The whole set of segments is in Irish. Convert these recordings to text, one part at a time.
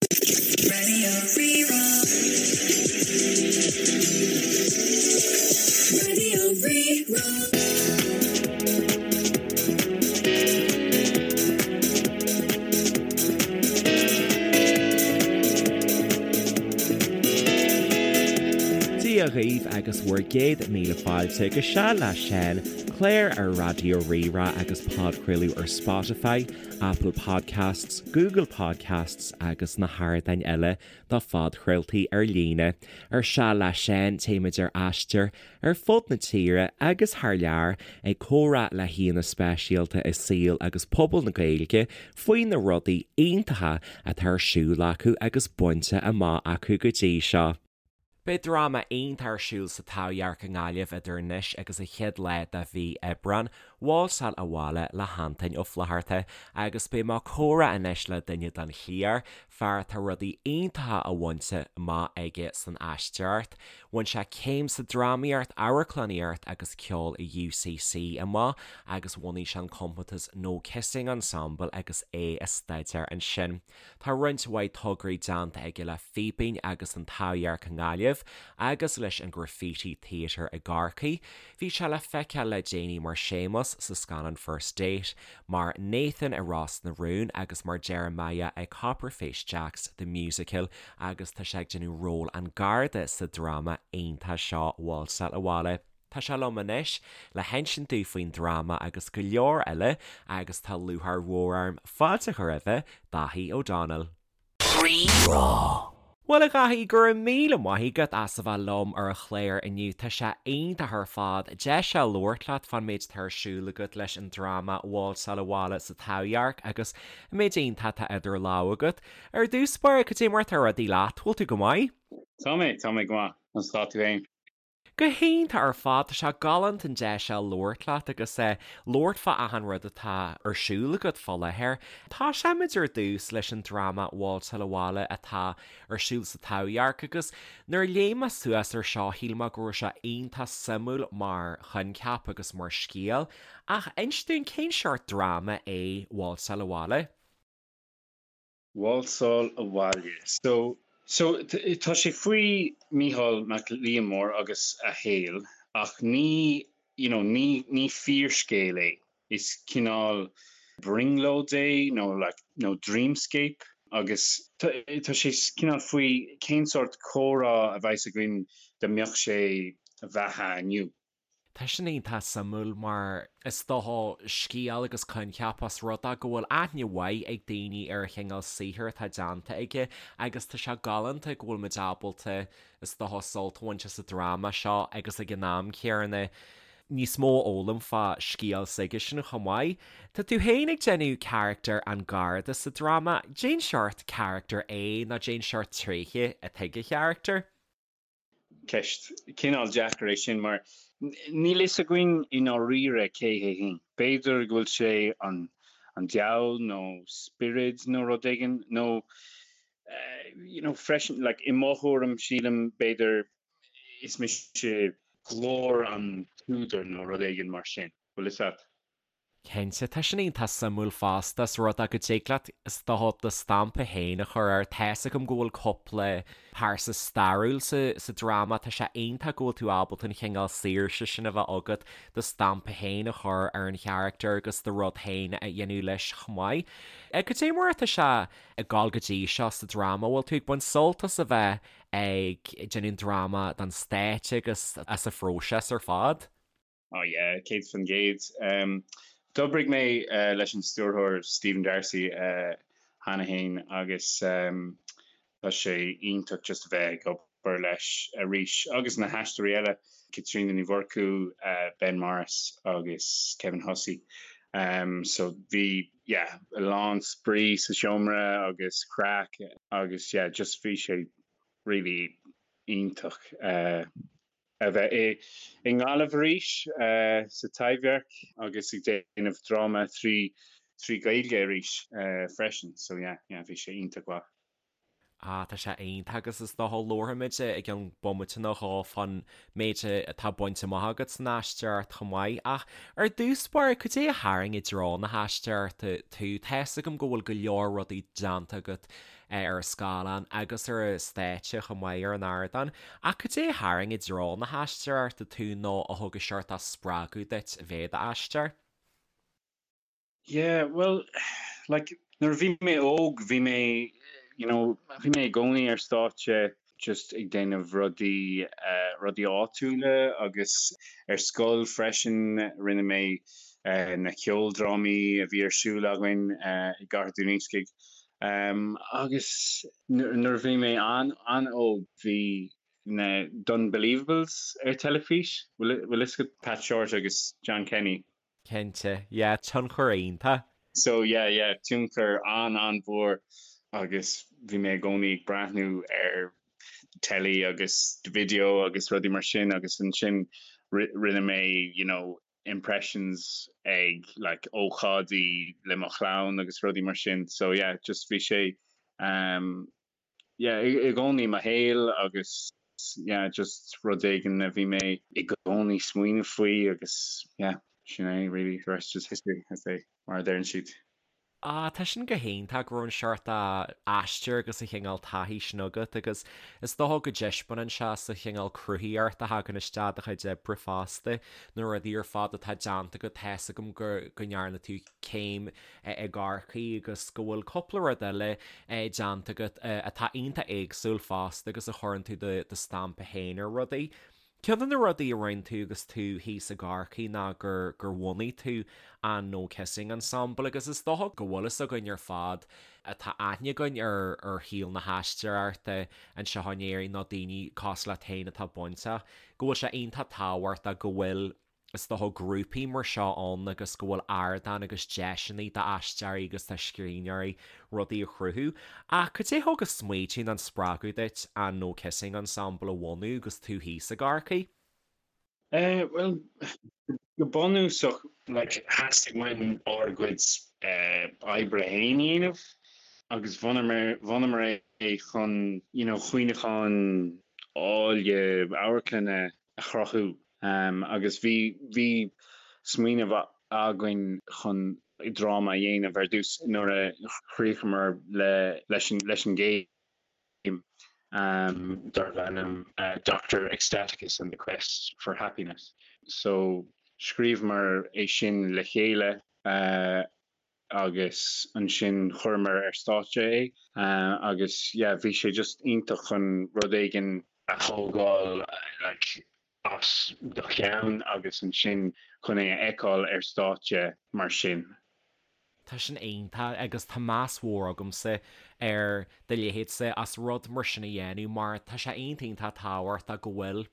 Radio Rí-Rá. Radio Rí-Rá. Dia dhaoibh agus bhur gcéad míle fáilte go Seal le Seán, clár ar Raidió Rí-Rá agus podchraoladh ar Spotify, Apple Podcasts, Google Podcasts agus na hardáin eile do phodchraoltaí ar líne. Ar Seal le Seán téimid ar aistear ar fud na tíre agus thar lear ag comhrá le haíonna speisialta i saol agus pobal na Gaeilge faoi na rudaí iontacha atá ar siúl acu agus bainte amach acu go dtí seo. Beidh dráma iontach ar siúl sa Taibhdhearc i nGaillimh idir anois agus an chéad lá de mhí Aibreán, Válsáil Abhaile le hAntaine Ó Flatharta, agus beidh mé ag comhrá anois le duine den chliar, fear atá rudaí iontacha á bhaint amach aige san aisteoireacht. Bhain sé céim sa drámaíocht, amharclannaíocht agus ceol i UCC amach agus bhunaigh sé an compántas No Kissing Ensemble agus é ag staidéar ansin. Tá roinnt mhaith tograí déanta aige le Fíbín agus an Taibhdhearc i nGaillimh agus leis an Graffiti Theatre i gCorcaigh. Bhí sé le feiceáil le déanaí mar Séamus sa scannán First Date, mar Nathan i Ros na Rún agus mar Jeremiah i Copper Face Jacks The Musical agus tá sé ag déanamh ról an Garda sa dráma iontach seo Válsáil Abhaile. Tá sé liom anois le hinsint dúinn faoin dráma agus go leor eile agus tá lúcháir mhór orm fáilte a chur roimhe, Dáithí O'Donnell. Rí-Rá. Bhuel a Dháithí, go raibh míle maith agat as a bheith liom ar an chlár inniu. Tá sé iontach ar fad deis a labhairt leat fán méid atá ar siúl agat leis an dráma Válsáil Abhaile sa Taibhdhearc agus an méid iontach atá idir lámha agat. Ar dtús báire, cad é mar atá rudaí leat? Bhfuil tú go maith? Tá mé, tá mé go maith. Conas tá tú féin? Go hiontach ar fad, tá sé galánta an deis seo labhairt leat agus labhairt fá achan rud atá ar siúl agat fá láthair. Tosóimid ar dtús leis an dráma Válsáil Abhaile atá ar siúl sa Taibhdhearc agus nuair a léigh mé suas ar seo shíl mé go raibh sé iontach suimiúil mar choincheap agus mar scéal. Ach inis dúinn cén seort dráma é Válsáil Abhaile? Válsáil Abhaile. So, so, tá sé faoi Mícheál Mac Liammóir agus a shaol ach ní, you know, ní, ní fíorscéal é. Is cineál brionglóid é nó like, nó dreamscape agus tá, tá sé cineál faoi cén sórt comhrá a bheas againn dá mbeadh sé i bheatha inniu. Tá sin iontach suimiúil mar is dócha scéal agus coincheap os rud é go bhfuil aithne mhaith ag daoine ar an chineál saothair atá déanta aige agus tá sé galánta go bhfuil muid ábalta is dócha sult a bhaint as an dráma seo agus ag an am céanna níos mó a fhoghlaim fá scéal s'aigesean chomh maith. Tá tú féin ag déanamh carachtar an Gharda sa dráma, cén seort carachtar é nó cén seort tréithe atá ag an charachtar? Ceist cineál deacair é sin mar níl fhios againn i ndáiríre cé hé féin. B'fhéidir go bhfuil sé an an diabhal nó spiorad nó rud éigin nó you know freisin like i mo thuairim sílim b'fhéidir is mise glór an t-údar nó rud éigin mar sin. Bhfuil fhios a't? Cinnte, tá sin iontach suimiúil fosta, is rud é go dtig leat is dócha do stampa féin a chur air. Tá's agam go bhfuil cúpla pearsa stairiúil sa sa dráma, tá sé iontach go bhfuil tú ábalta an chineál saoirse sin a bheith agat do stampa féin a chur ar an charachtar agus do rud féin a dhéanamh leis chomh maith. Cad é mar atá sé ag gabháil go dtí seo sa dráma? Bhfuil tú ag baint sult as a bheith ag déanamh an dráma don stáitse agus as an phróiseas ar fad? Oh yeah, 100%. D'oibrigh mé leis an stiúrthóir Stephen D'Arcy cheana féin agus tá sé iontach just a bheith ag obair leis arís agus na haisteoirí eile, Caitríona Ní Mhurchú, Ben Morris agus Kevin Hussey. So bhí yeah, a lán spraoi sa seomra agus craic agus yeah, just bhí sé really iontach. a bheith i nGaillimh arís sa Taibhdhearc agus ag déanamh dráma trí Ghaeilge arís freisin so yeah yeah bhí sé iontach mhaith. Ah tá sé iontach agus is dócha labharfaimid i gceann bomaite nó dhó fán méid atá bainte amach agat san aisteoireacht chomh maith ach ar dtús báire cad é a tharraing i dtreo na haisteoireachta tú? Tá's agam go bhfuil go leor rudaí déanta agat. ar an scáileán agus ar an stáitse chomh maith ar an ardán. Ach cad é a tharraing i dtreo na haisteoireachta tú nó a thug an seort spreagadh duit a bheith i d'aisteoir? Yeah, well, like, nuair a bhí mé óg, bhí mé, you know, bhí mé i gcónaí ar stáitse just ag déanamh rudaí, eh, rudaí áitiúla agus ar scoil freisin rinne mé eh, na ceoldrámaí a bhí ar siúl againn eh, i gCathair Dún Iascaigh. Um, agus nuair a bhí mé an-an-óg bhí na D'Unbelievables ar teilifís, bhfuil fhios agat Pat Shortt agus John Kenny? Cinnte, yeah, tionchar iontach. So yeah, yeah, tionchar an-an-mhór agus bhí mé i gcónaí ag breathnú ar telly agus video agus rudaí mar sin agus ansin rinne mé, you know, impressions ag like ócáidí le mo chlann agus rudaí mar sin. So yeah, just bhí sé um, yeah, i gcónaí i mo shaol agus yeah, just rud éigin a bhí mé i gcónaí smaoineamh faoi agus yeah, sin é really, the rest is history, as they, mar a deireann siad. Ah, tá sin go hiontach go raibh an seort aistear agus an chineál taithí sin agat agus is dócha go dtaispeánann sé sa chineál cruthaíocht a thagann isteach i do chuid oibre fosta, na rudaí ar fad atá déanta agat, tá's agam go go ndearna tú céim i gCorcaigh agus go bhfuil cúpla rud eile déanta agat atá iontach éagsúil fosta agus a chuireann tú do stampa féin ar rudaí. Ceann de na rudaí a rinne tú agus tú thíos i gCorcaigh ná gur gur bhunaigh tú an No Kissing Ensemble agus is dócha go bhfuil fhios againn ar fad atá aithne againn ar ar shaol na haisteoireachta anseo in Éirinn nó daoine cosúil leat féin atá bainteach, go bhfuil sé iontach tábhachtach go bhfuil is dócha, grúpaí mar seo ann agus go bhfuil ardán agus deiseanna d'aisteoirí agus do scríbhneoirí rudaí a chruthú. Ach cad é a thug an smaoitiú nó an spreagadh duit an No Kissing Ensemble a bhunú agus tú thíos i gCorcaigh? Eh, bhuel, go bunúsach, like, theastaigh uainn ár gcuid eh, oibre féin a dhéanamh agus bhunamar, bhunamar é chun, you know, cuimhneacháin áille amharclainne a chruthú agus bhí bhí smaoineamh againn chun dráma a dhéanamh ar dtús nuair a chríochamar le leis an leis an gcéim darbh ainm Doctor Ecstaticus and the Quest for Happiness. So scríobhamar é sin le chéile agus ansin chuireamar ar stáitse é agus yeah bhí sé just iontach chun rud éigin a thógáil like as do cheann agus ansin chun é a fheiceáil ar stáitse mar sin. Tá sin iontach agus tá meas mhór agamsa ar do leithéidse as rud mar sin a dhéanamh mar tá sé iontach iontach tábhachtach go bhfuil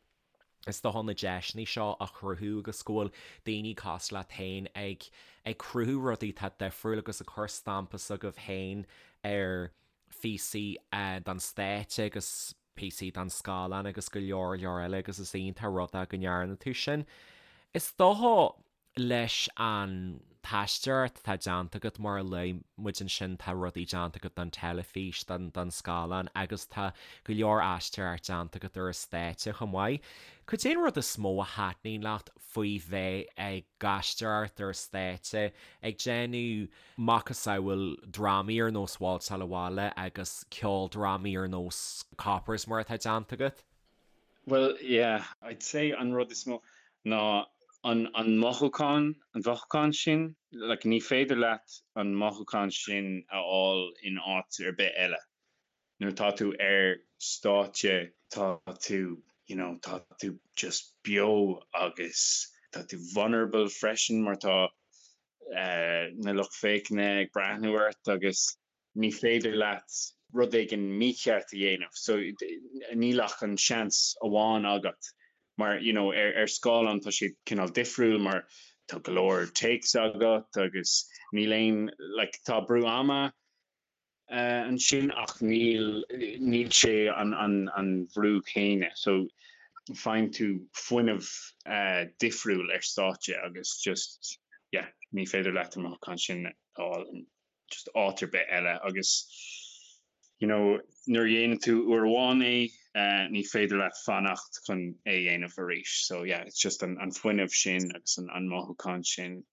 is dócha na deiseanna seo a chruthú agus go bhfuil daoine cosúil leat féin ag ag cruthú rudaí atá difriúil agus ag cur stampa s'agaibh féin ar phíosaí don stáitse agus píosaí don scáileán agus go leor leor eile agus is iontach rud é go ndearna tú sin. Is dócha leis an t-aisteoireacht atá déanta agat, mar a luaigh muid ansin, tá rudaí déanta agat don teilifís, don don scáileán agus tá go leor aisteoireacht déanta agat ar an stáitse chomh maith. Cad é an rud is mó a thaitníonn leat faoi bheith ag aisteoireacht ar an stáitse, ag déanamh macasamhail drámaí ar nós Válsáil Abhaile agus ceoldrámaí ar nós Coppers mar atá déanta agat? Bhuel, yeah, I'd say an rud is mó ná an an mothúchán, an mhothúchán sin, like ní féidir leat an mothúchán sin a fháil in áit ar bith eile. Nuair atá tú ar stáitse tá tú, you know, tá tú just beo agus tá tú vulnerable freisin mar tá eh, na lucht féachana ag breathnú ort agus ní féidir leat rud éigin mícheart a dhéanamh so níl ach an seans amháin agat mar you know ar ar scáileán tá sé cineál difriúil mar tá go leor takes agat agus níl aon like tá brú ama uh, ansin ach níl níl sé an an an bhrú céanna so faigheann tú fuinneamh uh, difriúil ar stáitse agus just yeah ní féidir leat an mothúchán sin a fháil just áit ar bith eile agus you know nuair a dhéanann tú uair amháin é eh, ní féidir leat fanacht chun é a dhéanamh arís. So yeah, it's just an, an fuinneamh sin agus an, an mothúchán sin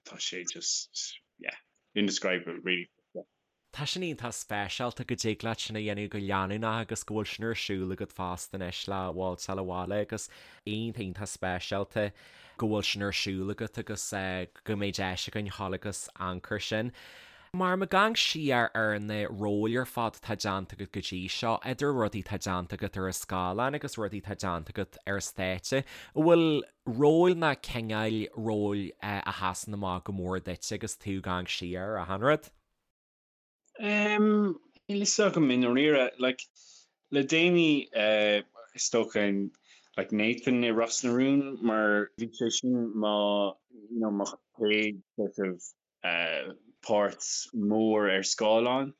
tá sé just yeah, indescribable really. Yeah. Tá sin iontach speisialta go dtig leat sin a dhéanamh go leanúnach agus go bhfuil sin ar siúl agat fosta anois le Válsáil Abhaile agus iontach iontach speisialta go bhfuil sin ar siúl agat agus go mbeidh deis againn dhul agus amharc air sin. Mar ag amharc siar ar na róil ar fad atá déanta agat go dtí seo, idir rudaí atá déanta agat ar an scáileán agus rudaí atá déanta agat ar stáitse, an bhfuil róil ná cineáil róil a sheasann amach go mór duit agus tú ag amharc siar ar achan rud? Níl fhios agam i ndáiríre. Like, le déanaí, is dócha, like Nathan i Ros na Rún mar bhí sé sin mo, you know, mo chéad sort of páirt mór ar scáileán.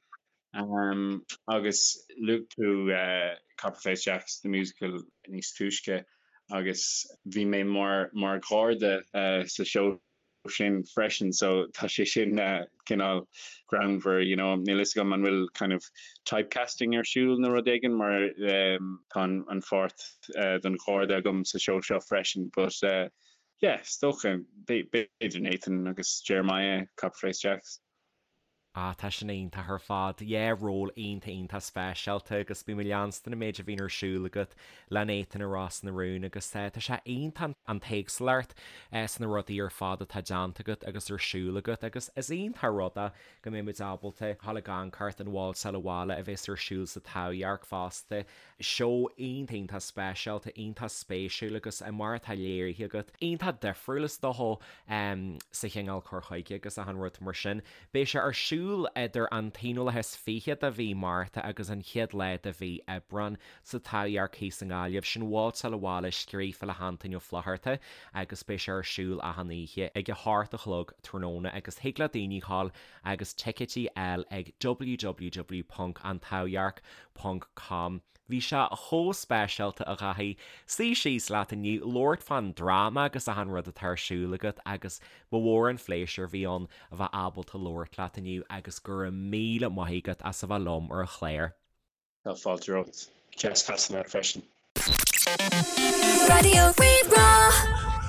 Agus luaigh tú Copper Face Jacks, the musical níos túisce agus bhí mé mar, mar gharda sa seó sin freisin so tá sé sin cineál greannmhar you know níl fhios agam an bhfuil kind of typecasting ar siúl nó rud éigin mar tá an pháirt don gharda agam sa seó seo freisin but yeah is dócha b'fhéidir Nathan agus Jeremiah Copper Face Jacks. Ah, tá sin iontach ar fad. Yeah, ról iontach iontach speisialta agus bím ag leanstan an méid a bhíonn ar siúl agat le Nathan i Ros na Rún agus tá sé iontach an t-éagsúlacht sna rudaí ar fad atá déanta agat agus ar siúl agat agus is iontach rud é go mbeidh muid ábalta dhul ag amharc ar an Válsáil Abhaile a bheas ar siúl sa Taibhdhearc fosta. Seó iontach iontach speisialta, iontach spéisiúil agus mar atá léirithe agat, iontach difriúil is dócha sa chineál cur chuige agus achan rud mar sin. Beidh sé ar siúl idir an t-aonú lá is fiche de mhí Márta agus an chéad lá de mhí Aibreán sa Taibhdhearc thíos i nGaillimh. Sin Válsáil Abhaile scríofa le hAntaine Ó Flatharta agus beidh sé ar siúl achan oíche ag a hocht a chlog tráthnóna agus thig le daoine dhul agus ticéidí a fháil ag www.antaibhdhearc ponc com. Bhí sé chomh speisialta a Dhaithí, suí síos leat inniu, labhairt fán dráma agus achan rud atá ar siúl agat agus ba mhór an phléisiúr a bhí ann a bheith ábalta labhairt leat inniu agus go raibh míle maith agat as a bheith liom ar an chlár. Tá fáilte romhat. Deas casadh leat freisin. Raidió Rí-Rá.